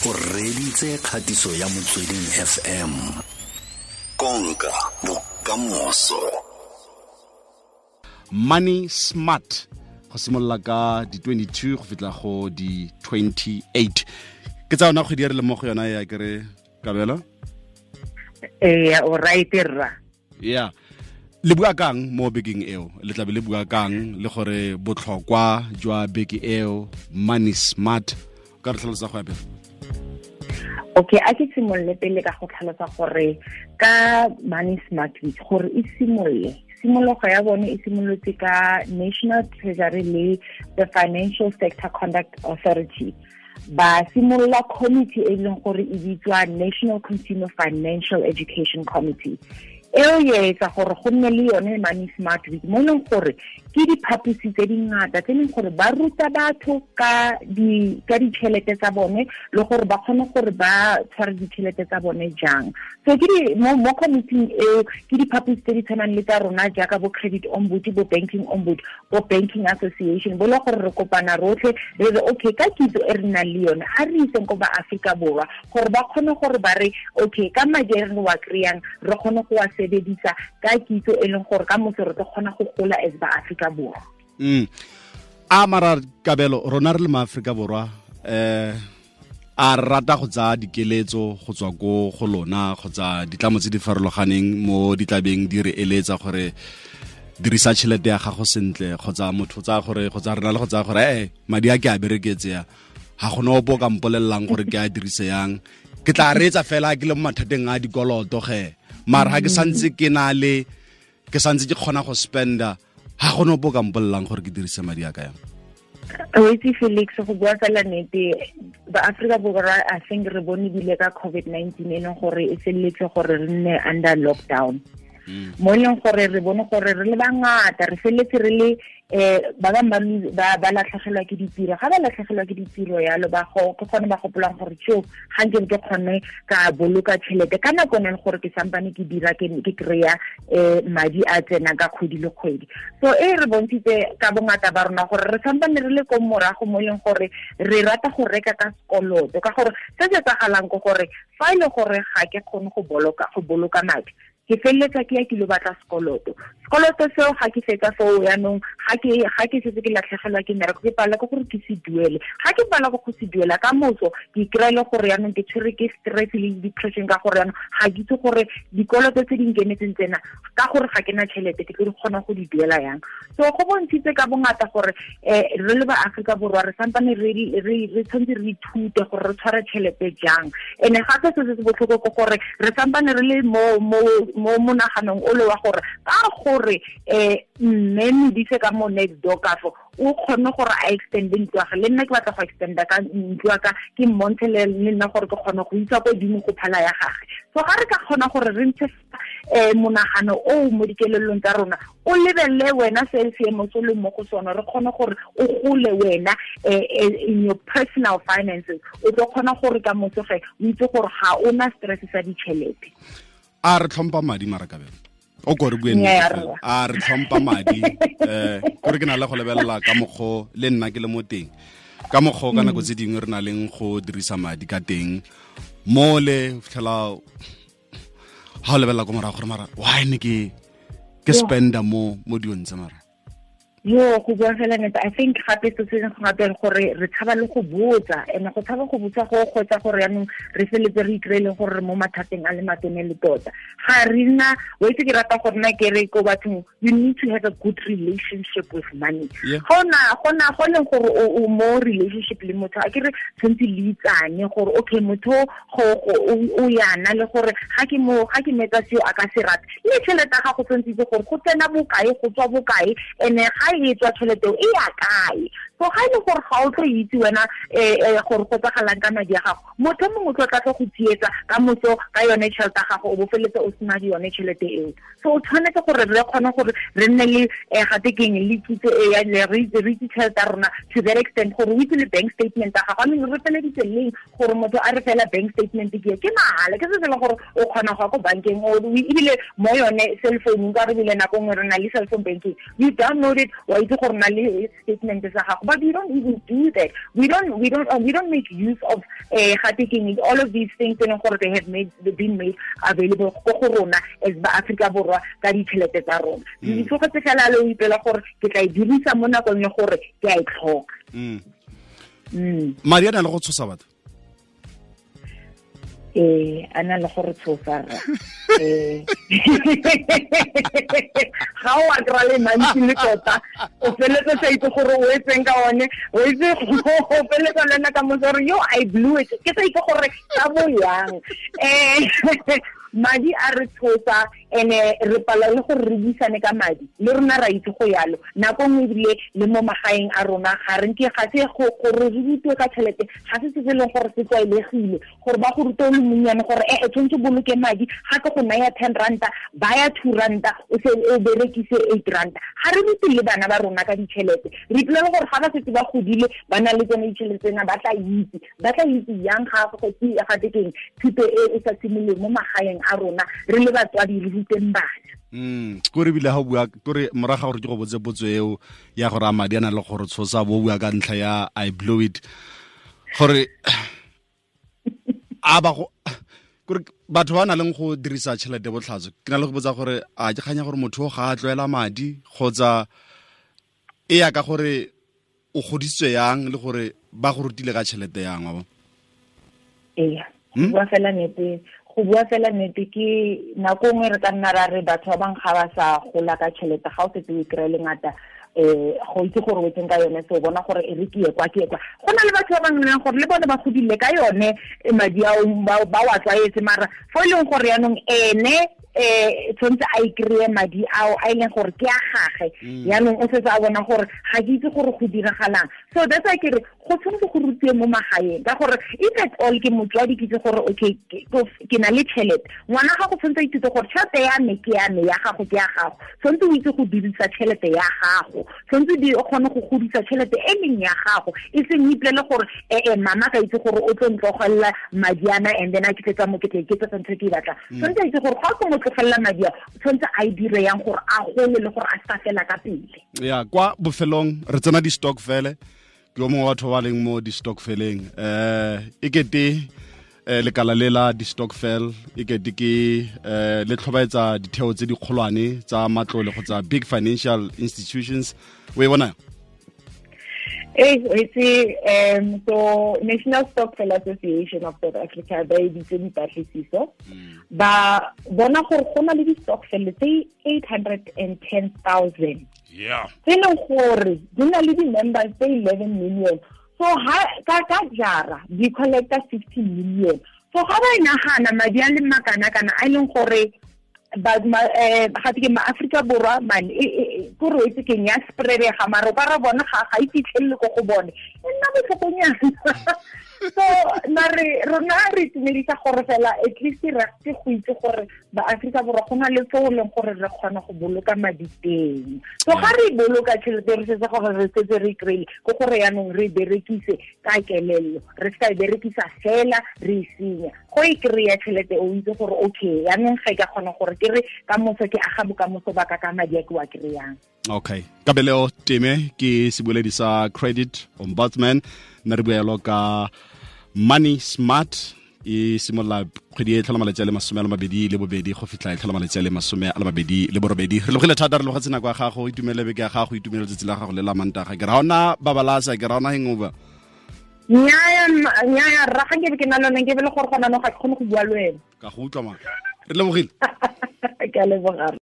O reditse kgatiso ya Motsweding FM. Konka bokamoso. Money Smart go simolola ka di 22 go fitla go di 28 ke tsa yona kgwedi ya re le mo go yona ya kere Kabelo. Ee, o right rra. Yeah. Le bua kang mo bekeng eo, le tlabe le bua kang le gore botlhokwa jwa beke eo Money Smart, ka re tlhalosa go ya pele? Okay, a ke simolole pele ka go tlhalosa gore ka Money Smart Week gore e simolole, tshimologo ya bone e simolotse ka National Treasury le the Financial Sector Conduct Authority. Ba simolola committee e leng gore e bitswa National Consumer Financial Education Committee. Eo e etsa gore go nne le yone Money Smart Week, mo e leng gore ke diphaposi tse dingata tse e leng gore ba ruta batho ka ditšhelete tsa bone le gore ba kgone gore ba tshware ditšhelete tsa bone jang. So ke di mo committee eo ke diphaposi tse di tshwanang le tsa rona jaaka bo credit ombud, bo banking ombud, bo banking association, bo le gore re kopana rotlhe re re okay, ka kitso e re nang le yone a re iseng ko ba Afrika Borwa gore ba kgone gore ba re okay, ka madi a re wa kry-ang re kgone go wa sebedisa ka kitso e leng gore ka motho re tlo kgona go gola as ba Afrika Borwa. A mara Kabelo, rona re le ma Afrika Borwa a rata go tsaya dikeletso go tswa ko go lona kgotsa ditlamo tse di farologaneng mo ditlabeng di re eletsa gore dirisa tšhelete ya gago sentle, kgotsa motho tsa gore kgotsa rena le go tsaya gore madi a ke a bereketse ya ga gona opo ka mpolelelang gore ke a dirise yang, ke tla reetsa fela ke le mo mathateng a dikoloto ge, mara ga ke santse ke na le ke santse ke kgona go spenda, ga gona opo ka mpolelelang gore ke dirise madi a ka yang. O itse Felix, go bua fela nnete, ba Afrika Borwa I think re bone bile ka COVID-19 e leng gore e felletse gore re nne under lockdown. Mo e leng gore re bone gore re le bangata re felletse re le ba bangwe ba latlhegelwa ke ditiro. Ga ba latlhegelwa ke ditiro yalo, ba go ke gone ba gopolang gore tjo ga nke ke kgone ka boloka tšhelete ka nako e leng gore ke sampane ke dira ke kry-a madi a tsenang ka kgwedi le kgwedi. So e re bontshitse ka bongata ba rona gore re sampane re le ko morago mo e leng gore re rata go reka ka sekoloto, ka gore se se etsagalang ke gore fa e le gore ga ke kgone go boloka madi, ke feleletsa ke ya ke lo batla sekoloto. Sekoloto seo ga ke fetsa foo yaanong, ga ke setse ke latlhegelwa ke mmereko, ke palelwa ke gore ke se duele. Ga ke palelwa ke go se duela ka moso, ke kry-a le gore yaanong ke tshwerwe ke stress le depression, ka gore yaanong ga ke itse gore dikoloto tse di nkemetseng tsena, ka gore ga ke na tšhelete ke tlo di kgona go di duela yang. So go bontshitse ka bongata gore re le ba Afrika Borwa re sampane re tshwanetse re ithute gore re tshware tšhelete jang. And gape se se botlhoko ke gore re sampane re le mo monaganong o le wa gore ka gore mme Modise ka mo next door ka fo o kgone gore a extende ntlo ya gagwe, le nna ke batla go extenda ka ntlo ya ka, ke mmontshe le nna gore ke kgone go isa ko godimo go phala ya gagwe. So ga re ka kgona gore re ntshe monagano o mo dikelellong tsa rona, o lebelele wena se seemo se le mo go sone, re kgone gore o gole wena in your personal finances, o tlo kgona gore ka motsoge o itse gore ga o na stress sa ditšhelete. A re tlhompha madi mara Kabelo, o ko re bue nnete, a re tlhompha madi kore ke na le go lebelela ka mokgo le nna ke le mo teng, ka mokgo ka nako tse dingwe re na leng go dirisa madi ka teng mo le fitlhela ha o lebelela ko morago gore mara why ne ke spenda mo dilong tse mara. Yo, go bua fela nnete, I think gape se se gape gore re tshaba le go botsa, and go tshaba go botsa go kgotsa gore yaanong re feletse re ikry-eleng gore re mo mathateng a le matone le tota. Ga re nna, wa itse ke rata gore nna ke re ko bathong, you need to have a good relationship with money. Go leng gore o mo relationship le motho, a ke re tshwanetse le itsane gore okay, motho o yana le gore ga ke metsa seo a ka se rate. Le tšhelete ya gago tshwanetse itse gore go tsena bokae, go tswa bokae, and ga e tswa tšhelete e ya kae. So ga e le gore ga o tlo itse wena gore go tsagalang ka madi a gago, motho mongwe o tlo tla go tsietsa ka moso ka yone tšhelete ya gago, o bo feletse o sena yone tšhelete eo. So o tshwanetse gore re kgone gore re nne le gape keng le kitso e ya le re itse tšhelete ya rona to that extent gore o itse le bank statement ya gago. I mean, re feleditse leng gore motho a re fela bank statement ke mahala, ke se se leng gore o kgona go ya ko bankeng, ebile mo yone cell phone ka re bile nako nngwe re na le cell phone banking, you download it, wa itse gore na le statement sa gago. But we don't even do that. We don't make use of all of these things e leng gore they have been made available ko go rona as ba Afrika Borwa ka ditšhelete tsa rona. Di tlogetse fela le o ipela gore ke tla e dirisa mo nakong ya gore ke a e tlhoka. Madi a na le go tshosa batho. A na le gore tshosa ga o a kry-a le mantsi le tota o feletse sa itse gore o etseng ka one, o itse o feletsa le nna ka motse gore yo I blew it, ke sa itse gore ka bo yang. Madi a re tshosa ene re pala le gore re buisane ka madi le rona ra itse go yalo nako nngwe ebile le mo magaeng a rona ga re nke ga se gore re rutiwe ka tšhelete, ga se se leng gore se tlwaelegile gore ba go rute o le monnyane gore e tshwanetse boloke madi, ga ke go naya 10 ranta baya 2 ranta o se o berekise 8 ranta. Ga re rute le bana ba rona ka ditšhelete, re ipolele gore ga ba setse ba godile ba na le tsone ditšhelete tsena ba tla itse yang ga go ga tekeng thuto e e sa simolole mo magaeng a rona re le batswadi re ruteng bana. Ko re bile ga o bua kore moraga gore ke go botse potso eo ya gore a madi a na le gore tshosa bo bua ka ntlha ya I blew it, gore a ba go kore batho ba na leng go dirisa tšhelete botlhatso, ke na le go botsa gore a ke kganya gore motho ga a tlwaela madi kgotsa e ya ka gore o godisitswe yang le gore ba go rutile ka tšhelete yang wa bo. Ee, go bua fela nnete ke nako nngwe re ka nna ra re batho ba bangwe ga ba sa gola ka tšhelete, ga o setse o kry-e le ngata go itse gore o etseng ka yone, se o bona gore e re ke ye kwa ke ye kwa. Go na le batho ba bangwe leng gore le bone ba godile ka yone madi ao ba wa tlwaetse, mara fo e leng gore yaanong ene tshwanetse a ikry-e madi ao a e leng gore ke a gage, yaanong o setse a bona gore ga ke itse gore go diragalang. So that's why ke re go tshwanetse go rutiwe mo magaeng, ka gore if at all ke motswadi ke itse gore okay ke na le tšhelete, ngwana gago tshwanetse a ithute gore tšhelete ya me ke ya me, ya gago ke ya gago, tshwanetse o itse go dirisa tšhelete ya gago, tshwanetse o kgone go godisa tšhelete e leng ya gago, e seng o ipolele gore mama ka itse gore o tlo ntlogelela madi ana and then a ke tletsa mo ke tla iketsetsa ntho e ke e batlang. Tshwanetse a itse gore ga o mo tlogelela madi a tshwanetse a e dire yang gore a gole le gore a se ka fela ka pele. Ya kwa bofelong re tsena di-stokvel, ke yo mongwe wa batho ba leng mo di-stokveleng, e kete lekala le la di-stokvel e kete ke le tlhobaetsa ditheo tse dikgolwane tsa matlole kgotsa big financial institutions, o e bona? So National Stokvel Association of South Africa ba editse dipatlisiso, ba bona gore go na le di-stokvel tse 810,000 tse leng gore di na le di-members tse 11 million. So ka jara di collecta 50 million. So ga ba e nagana madi a le makana-kana a e leng gore ga ke ma-Afrika Borwa man ko re itse keng ya spreadega, mara o ka re bona ga e fitlhelele ko go bone, e nna botlhokonyana. So mare rona re itumedisa gore fela at least re ke go itse gore ba-Afrika Borwa go na le fo leng gore re kgona go boloka madi teng. So ga re boloka tšhelete re setse gore re setse re kry-ile, ke gore yaanong re berekise ka kelello, re se ka e berekisa fela re e senya. Go e kry-a tšhelete o itse gore okay yaanong ga e ka kgona gore ke re ka moso ke aga bokamoso ba ka ka madi a ke wa kry-ang. Okay, Kabelo Teme ke seboledi sa Credit Ombudsman, nna re bua ka Money Smart e simolola kgwedi e tlhola malatsi a le 22 go fitlha e tlhola malatsi a le 28. Re logile thata, re logetse nako ya gago, itumele beke ya gago, itumele letsatsi la gago le la Mantaga. Ke ra ona babalasa, ke ra ona hangover. Nnyaya rra, ga nkebe ke na lone nke be le gore gona no ga ke kgone go bua le wena. Ka go utlwa ma. Re lebogile. Ke a leboga.